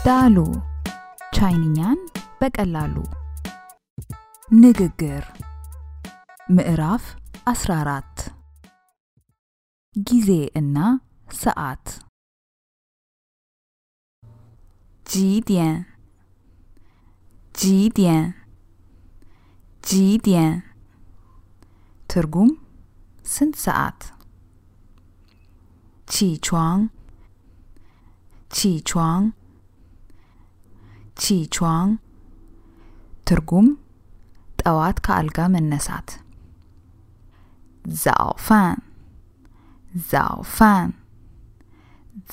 ዳሉ ቻይንኛን በቀላሉ ንግግር ምዕራፍ 14 ጊዜ እና ሰዓት ጂዲያን ጂዲያን ጂዲያን ትርጉም ስንት ሰዓት ቺቿን ቺቿን ቺቿን ትርጉም ጠዋት ከአልጋ መነሳት ዛኦፋን ዛኦፋን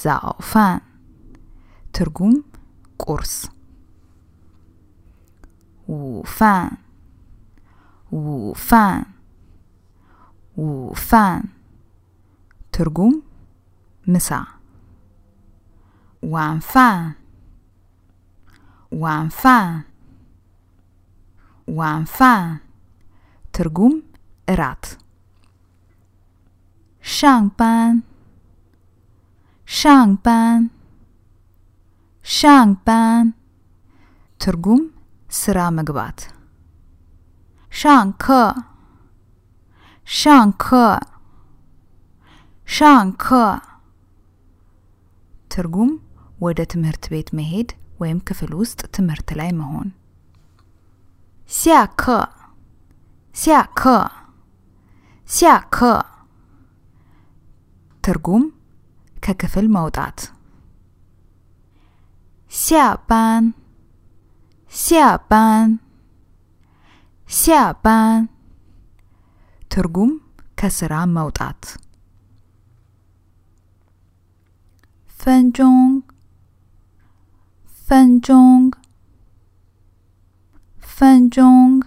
ዛኦፋን ትርጉም ቁርስ ውፋን ውፋን ውፋን ትርጉም ምሳ ዋንፋን ዋንፋን ዋንፋን ትርጉም እራት ሻንባን ሻንባን ሻንባን ትርጉም ስራ መግባት ሻንከ ሻንከ ሻንከ ትርጉም ወደ ትምህርት ቤት መሄድ ወይም ክፍል ውስጥ ትምህርት ላይ መሆን ሲያከ ሲያከ ሲያከ ትርጉም ከክፍል መውጣት ሲያባን ሲያባን ሲያባን ትርጉም ከስራ መውጣት ፈንጆንግ ፈንጆንግ ፈንጆንግ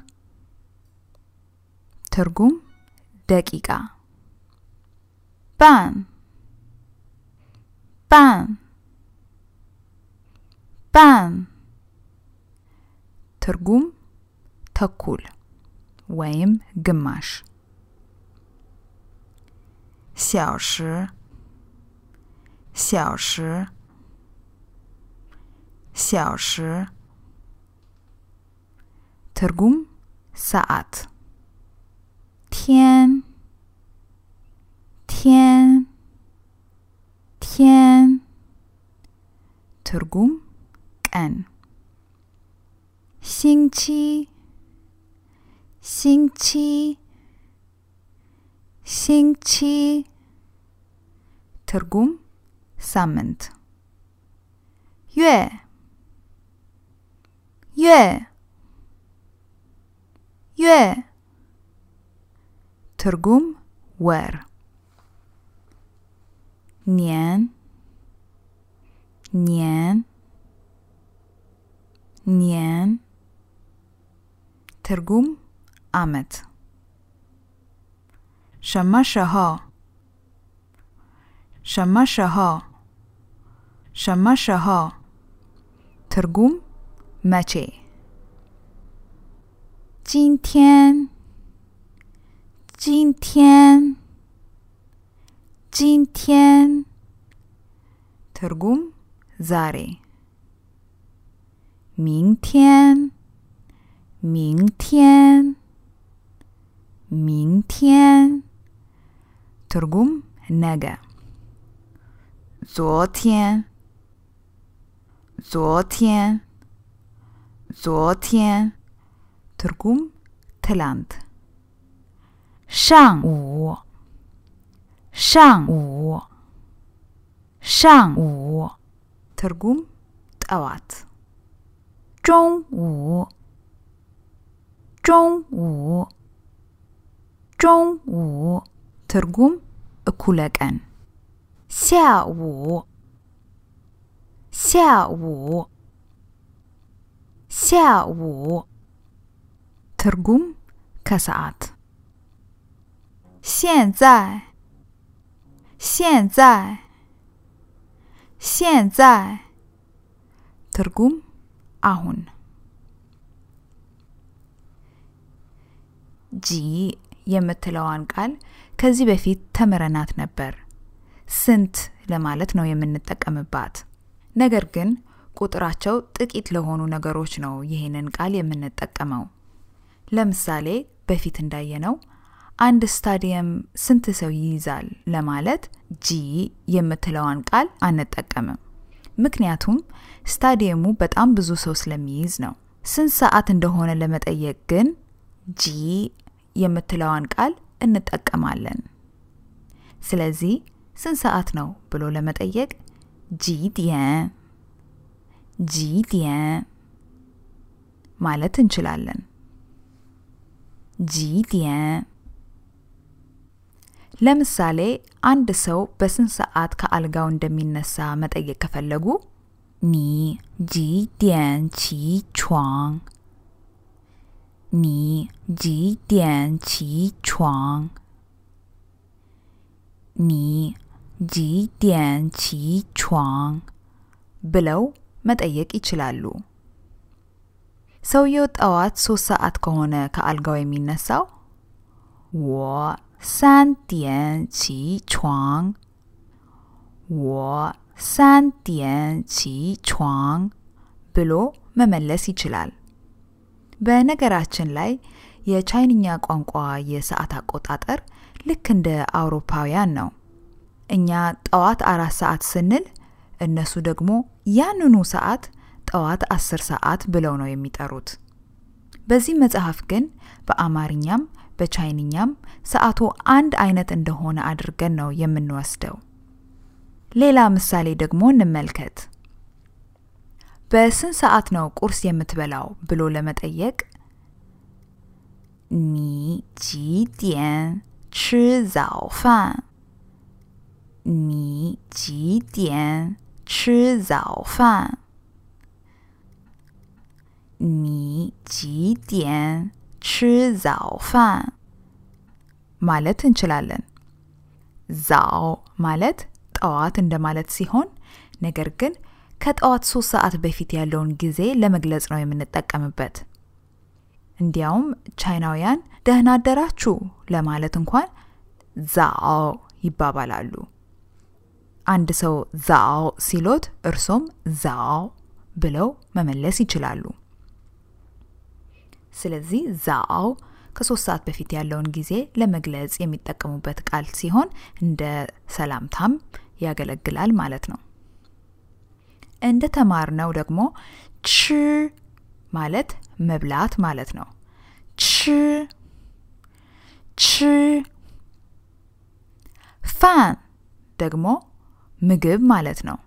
ትርጉም ደቂቃ ባን ባን ባን ትርጉም ተኩል ወይም ግማሽ xiao shi xiao shi ትርጉም ሰዓት天天天ትርጉም ቀን星期星期星期ትርጉም ሳምንት月月月ትርጉም ወር年年年ትርጉም አመት什么时候什么时候什么时候ትርጉም መቼ今天今天今天ትርጉም ዛሬ明天明天明天ትርጉም ነገ昨天昨天昨天ትርጉም ትላንት上午上午上午ትርጉም ጠዋት中午中午中午ትርጉም እኩለ ቀን下午下午下午ትርጉም ከሰዓት现在现在现在ትርጉም አሁን ጂ የምትለዋን ቃል ከዚህ በፊት ተመረናት ነበር ስንት ለማለት ነው የምንጠቀምባት ነገር ግን ቁጥራቸው ጥቂት ለሆኑ ነገሮች ነው ይሄንን ቃል የምንጠቀመው። ለምሳሌ በፊት እንዳየነው አንድ ስታዲየም ስንት ሰው ይይዛል ለማለት ጂ የምትለዋን ቃል አንጠቀምም። ምክንያቱም ስታዲየሙ በጣም ብዙ ሰው ስለሚይዝ ነው። ስንት ሰዓት እንደሆነ ለመጠየቅ ግን ጂ የምትለዋን ቃል እንጠቀማለን። ስለዚህ ስንት ሰዓት ነው ብሎ ለመጠየቅ ጂ ዲያን ማለት እንችላለን። ጂ ዲያን። ለምሳሌ አንድ ሰው በስንት ሰዓት ከአልጋው እንደሚነሳ መጠየቅ ከፈለጉ ኒ ጂ ዲያን ቺ ቹዋንግ፣ ኒ ጂ ዲያን ቺ ቹዋንግ፣ ኒ ጂ ዲያን ቺ ቹዋንግ ብለው መጠየቅ ይችላሉ። ሰውየው ጠዋት 3 ሰዓት ከሆነ ከአልጋው የሚነሳው ወ 3点起床，我3点起床ብሎ መመለስ ይችላል። በነገራችን ላይ የቻይንኛ ቋንቋ የሰዓት አቆጣጠር ልክ እንደ አውሮፓውያን ነው። እኛ ጠዋት 4 ሰዓት ስንል እነሱ ደግሞ ያንኑ ሰዓት ጠዋት 10 ሰዓት ብለው ነው የሚጠሩት። በዚህ መጽሐፍ ግን በአማርኛም በቻይንኛም ሰዓቱ አንድ አይነት እንደሆነ አድርገን ነው የምንወስደው። ሌላ ምሳሌ ደግሞ እንመልከት። በስንት ሰዓት ነው ቁርስ የምትበላው ብሎ ለመጠየቅ ኒ ጂ ዲያን ቺ ዛኦ ፋን፣ ኒ ጂ ዲያን ቺ ዛኦ ፋን፣ ኒ ጂ ዲያን ቺ ዛኦ ፋን ማለት እንችላለን። ዛኦ ማለት ጠዋት እንደማለት ሲሆን ነገር ግን ከጠዋት 3 ሰዓት በፊት ያለውን ጊዜ ለመግለጽ ነው የምንጠቀምበት። እንዲያውም ቻይናውያን ደህና አደራችሁ ለማለት እንኳን ዛኦ ይባባላሉ። አንድ ሰው ዛኦ ሲሎት እርሶም ዛኦ ብለው መመለስ ይችላሉ። ስለዚህ ዛኦ ከ3 ሰዓት በፊት ያለውን ጊዜ ለመግለጽ የሚጠቀሙበት ቃል ሲሆን እንደ ሰላምታም ያገለግላል ማለት ነው። እንደ ተማርነው ደግሞ ቺ ማለት መብላት ማለት ነው። ቺ ፋን ደግሞ ምግብ ማለት ነው።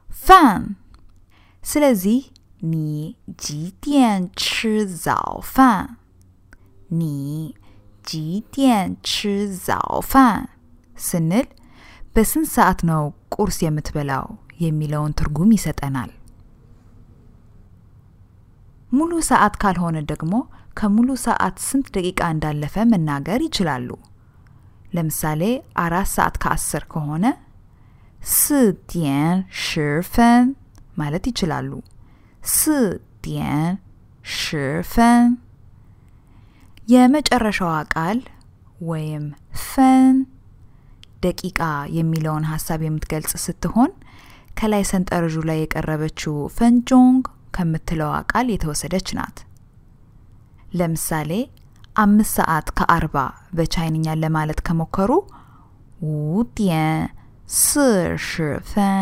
ፋን። ስለዚህ ኒ ጂ ዲያን ቺ ዛኦ ፋን፣ ኒ ጂ ዲያን ቺ ዛኦ ፋን ስንል በስንት ሰዓት ነው ቁርስ የምትበላው የሚለውን ትርጉም ይሰጠናል። ሙሉ ሰዓት ካልሆነ ደግሞ ከሙሉ ሰዓት ስንት ደቂቃ እንዳለፈ መናገር ይችላሉ። ለምሳሌ 4 ሰዓት ከ10 ከሆነ 4:10ማለት ይችላሉ። 4:10 የመጨረሻዋ ቃል ወይም ፈን ደቂቃ የሚለውን ሐሳብ የምትገልጽ ስትሆን ከላይ ሰንጠረዡ ላይ የቀረበችው ፈንጆንግ ከምትለው ቃል የተወሰደች ናት። ለምሳሌ 5 ሰዓት ከ40 በቻይንኛ ለማለት ከሞከሩ 5:40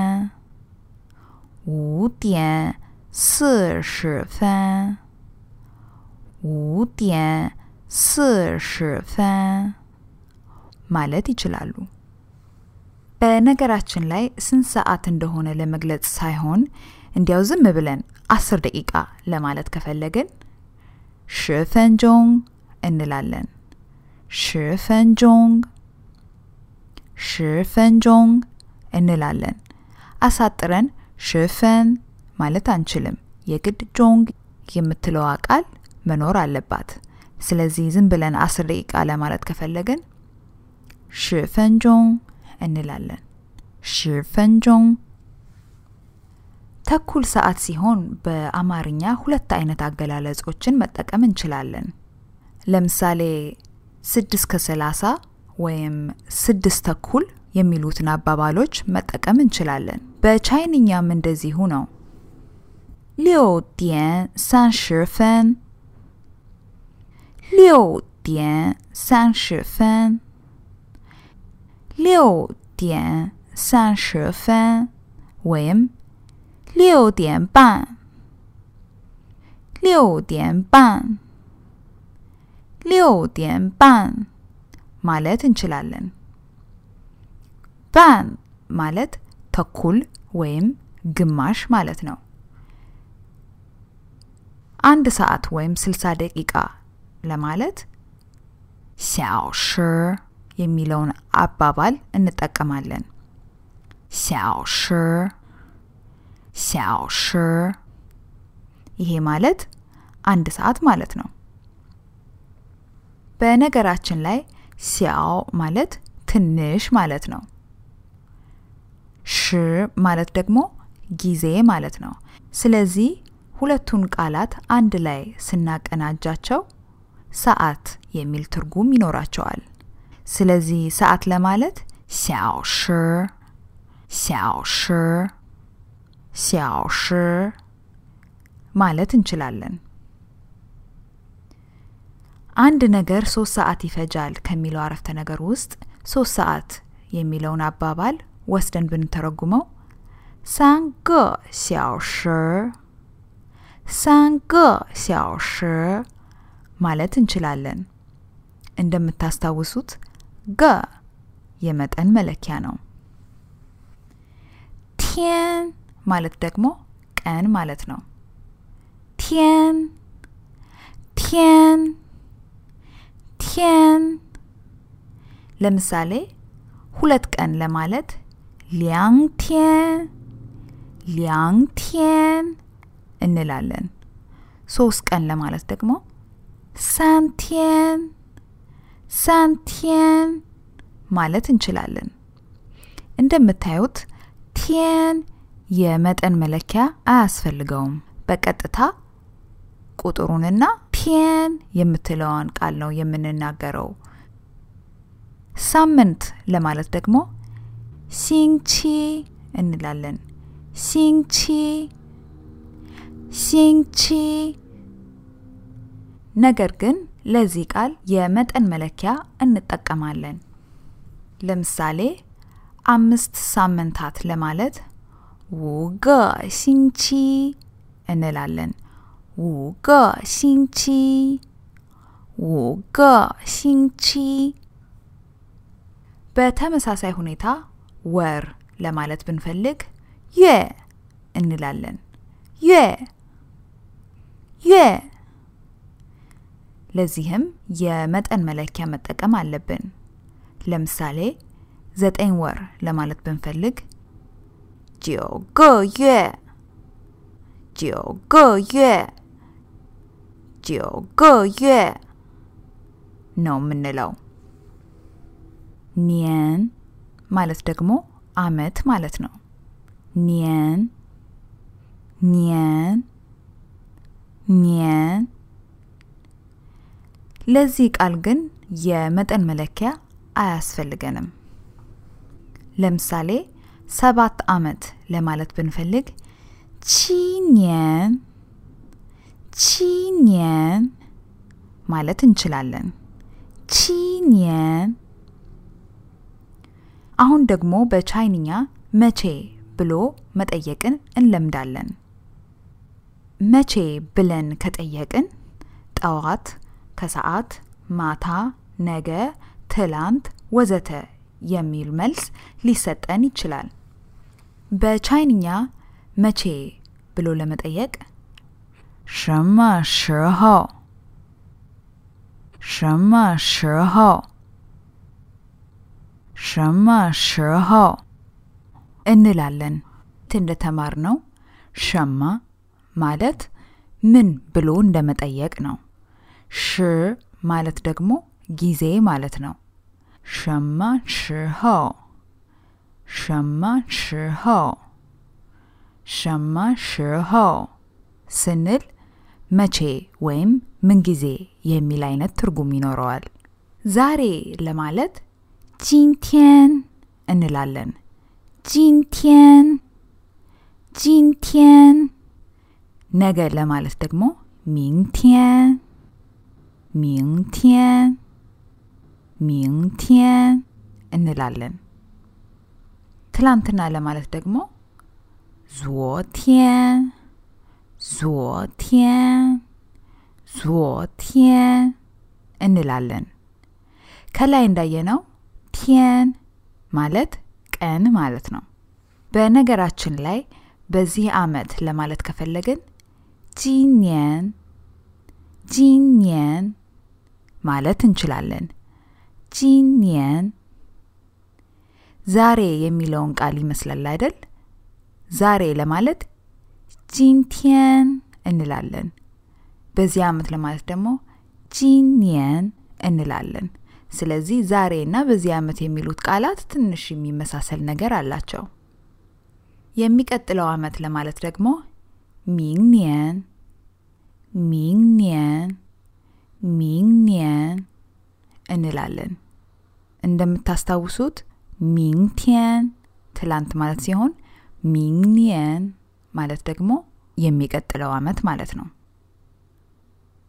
5:40 ማለት ይችላሉ። በነገራችን ላይ ስንት ሰዓት እንደሆነ ለመግለጽ ሳይሆን እንዲያው ዝም ብለን 10 ደቂቃ ለማለት ከፈለግን 10分钟 እንላለን። 10分钟 እንላለን። አሳጥረን 10分 ማለት አንችልም። የግድ ጆንግ የምትለው ቃል መኖር አለባት። ስለዚህ ዝም ብለን 10 ደቂቃ ለማለት ከፈለግን 10分钟 እንላለን። 10分钟ተኩል ሰዓት ሲሆን በአማርኛ 2 አይነት አገላለጾችን መጠቀም እንችላለን። ለምሳሌ 6:30 ወይም 6 ተኩል የሚሉትን አባባሎች መጠቀም እንችላለን። በቻይንኛም እንደዚሁ ነው። 6:30 6:30 6:30 ወይም 6:30 6:30 6:30 ማለት እንችላለን። ባን ማለት ተኩል ወይም ግማሽ ማለት ነው። 1 ሰዓት ወይም 60 ደቂቃ ለማለት 小时 የሚለውን አባባል እንጠቀማለን። 小时 小时 ይሄ ማለት 1 ሰዓት ማለት ነው። በነገራችን ላይ 小 ማለት ትንሽ ማለት ነው። ሽ ማለት ደግሞ ጊዜ ማለት ነው። ስለዚህ ሁለቱን ቃላት አንድ ላይ ስናቀናጃቸው ሰዓት የሚል ትርጉም ይኖራቸዋል። ስለዚህ ሰዓት ለማለት 小时 小时 小时 ማለት እንችላለን። አንድ ነገር 3 ሰዓት ይፈጃል ከሚለው አረፍተ ነገር ውስጥ 3 ሰዓት የሚለውን አባባል ወስደን ብንተረጉመው 3个小时 3个小时 ማለት እንችላለን። እንደምታስታውሱት ገ የመጠን መለኪያ ነው። ቲያን ማለት ደግሞ ቀን ማለት ነው። ቲያን ቲያን ቲያን ለምሳሌ 2 ቀን ለማለት 2天 2天 እንላለን። 3 ቀን ለማለት ደግሞ 3天 3天 ማለት እንችላለን። እንደምታዩት ቲያን የመጠን መለኪያ አያስፈልገውም። በቀጥታ ቁጥሩንና ቲያን የምትለውን ቃል ነው የምንናገረው። ሳምንት ለማለት ደግሞ 星期 እንላለን። 星期 星期 ነገር ግን ለዚህ ቃል የመጠን መለኪያ እንጠቀማለን። ለምሳሌ 5 ሳምንታት ለማለት 5个星期 እንላለን። 5个星期 5个星期 በተመሳሳይ ሁኔታ ወር ለማለት ብንፈልግ 月 እንላለን። 月 月 ለዚህም የመጠን መለኪያ መጠቀም አለብን። ለምሳሌ 9 ወር ለማለት ብንፈልግ 9个月 9个月 9个月 ነው የምንለው። ኒየን ማለት ደግሞ አመት ማለት ነው። ኒየን ኒየን ኒየን ለዚህ ቃል ግን የመጠን መለኪያ አያስፈልገንም። ለምሳሌ 7 አመት ለማለት ብንፈልግ 7年 7年 ማለት እንችላለን። 7年 አሁን ደግሞ በቻይንኛ መቼ ብሎ መጠየቅን እንለምዳለን። መቼ ብለን ከጠየቅን ጠዋት፣ ከሰዓት፣ ማታ፣ ነገ፣ ትላንት ወዘተ የሚል መልስ ሊሰጠን ይችላል። በቻይንኛ መቼ ብሎ ለመጠየቅ 什么时候 什么时候 什么时候 እንላለን። እንደተማርነው ሸማ ማለት ምን ብሎ እንደመጠየቅ ነው። ሽ ማለት ደግሞ ጊዜ ማለት ነው። 什么时候 什么时候 什么时候 ስንል መቼ ወይም ምን ጊዜ የሚል አይነት ትርጉም ይኖረዋል። ዛሬ ለማለት 今天 እንላለን። 今天 今天 ነገ ለማለት ደግሞ 明天 明天 明天 እንላለን። ትላንትና ለማለት ደግሞ 昨天 昨天 昨天 እንላለን። ከላይ እንዳየነው 天 ማለት ቀን ማለት ነው። በነገራችን ላይ በዚህ ዓመት ለማለት ከፈለግን 今年 今年 ማለት እንችላለን። 今年 ዛሬ የሚለውን ቃል ይመስላል አይደል? ዛሬ ለማለት 今天 እንላለን። በዚህ ዓመት ለማለት ደግሞ 今年 እንላለን። ስለዚህ ዛሬና በዚህ ዓመት የሚሉት ቃላት ትንሽ የሚመሳሰል ነገር አላቸው። የሚቀጥለው ዓመት ለማለት ደግሞ 明年 明年 明年 እንላለን። እንደምታስታውሱት 明天 ትላንት ማለት ሲሆን 明年 ማለት ደግሞ የሚቀጥለው ዓመት ማለት ነው።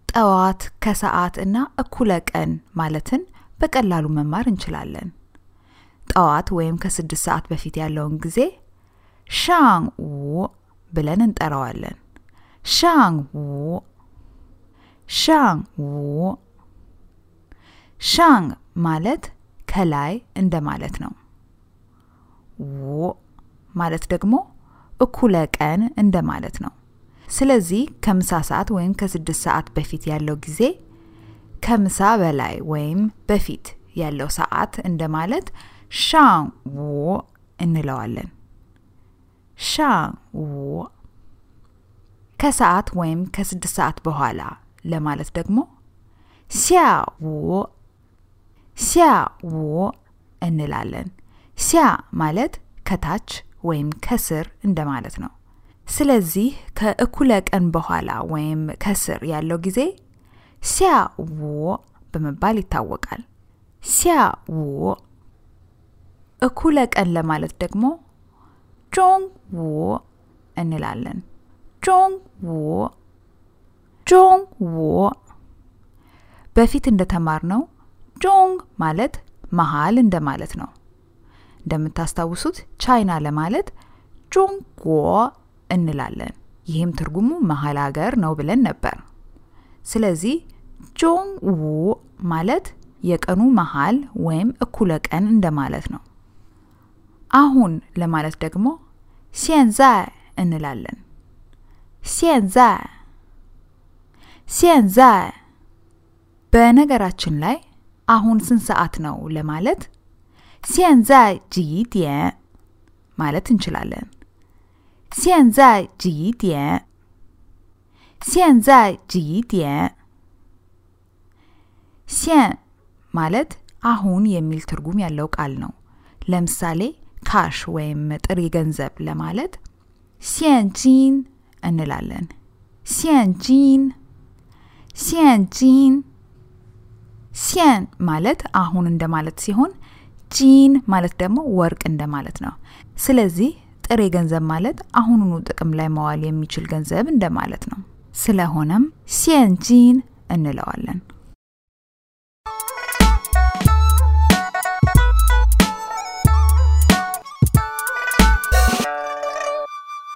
ጠዋት ከሰዓት እና እኩለ ቀን ማለትን በቀላሉ መማር እንችላለን። ጠዋት ወይም ከ6 ሰዓት በፊት ያለውን ጊዜ 上午 ብለን እንጠራዋለን። 上午 上午 上ማለት ከላይ እንደማለት ነው። ው ማለት ደግሞ እኩለ ቀን እንደማለት ነው። ስለዚህ ከምሳ ሰዓት ወይም ከ6 ሰዓት በፊት ያለው ጊዜ ከምሳ በላይ ወይም በፊት ያለው ሰዓት እንደማለት 上午 እንለዋለን። 上午 ከሰዓት ወይም ከ6 ሰዓት በኋላ ለማለት ደግሞ 下午 下午 እንላለን። 下ማለት ከታች ወይም ከስር እንደማለት ነው። ስለዚህ ከእኩለ ቀን በኋላ ወይም ከስር ያለው ጊዜ 下午 በመባል ይታወቃል። 下午 እኩለ ቀን ለማለት ደግሞ 中午 እንላለን። 中午 中午 በፊት እንደተማርነው 中 ማለት መሃል እንደማለት ነው። እንደምታስታውሱት ቻይና ለማለት 中国 እንላለን። ይህም ትርጉሙ መሃል ሀገር ነው ብለን ነበር። ስለዚህ 中午 ማለት የቀኑ መሃል ወይም እኩለ ቀን እንደማለት ነው። አሁን ለማለት ደግሞ 现在 እንላለን። 现在 现在 በነገራችን ላይ አሁን ስንት ሰዓት ነው ለማለት 现在几点 ማለት እንችላለን። 现在几点 现在几点 现ማለት አሁን የሚል ትርጉም ያለው ቃል ነው። ለምሳሌ ካሽ ወይም ጥሬ ገንዘብ ለማለት 现金 እንላለን። 现金 现金 现ማለት አሁን እንደማለት ሲሆን ጂን ማለት ደግሞ ወርቅ እንደማለት ነው። ስለዚህ ጥሬ ገንዘብ ማለት አሁኑኑ ጥቅም ላይ መዋል የሚችል ገንዘብ እንደማለት ነው። ስለሆነም 现金 እንለዋለን።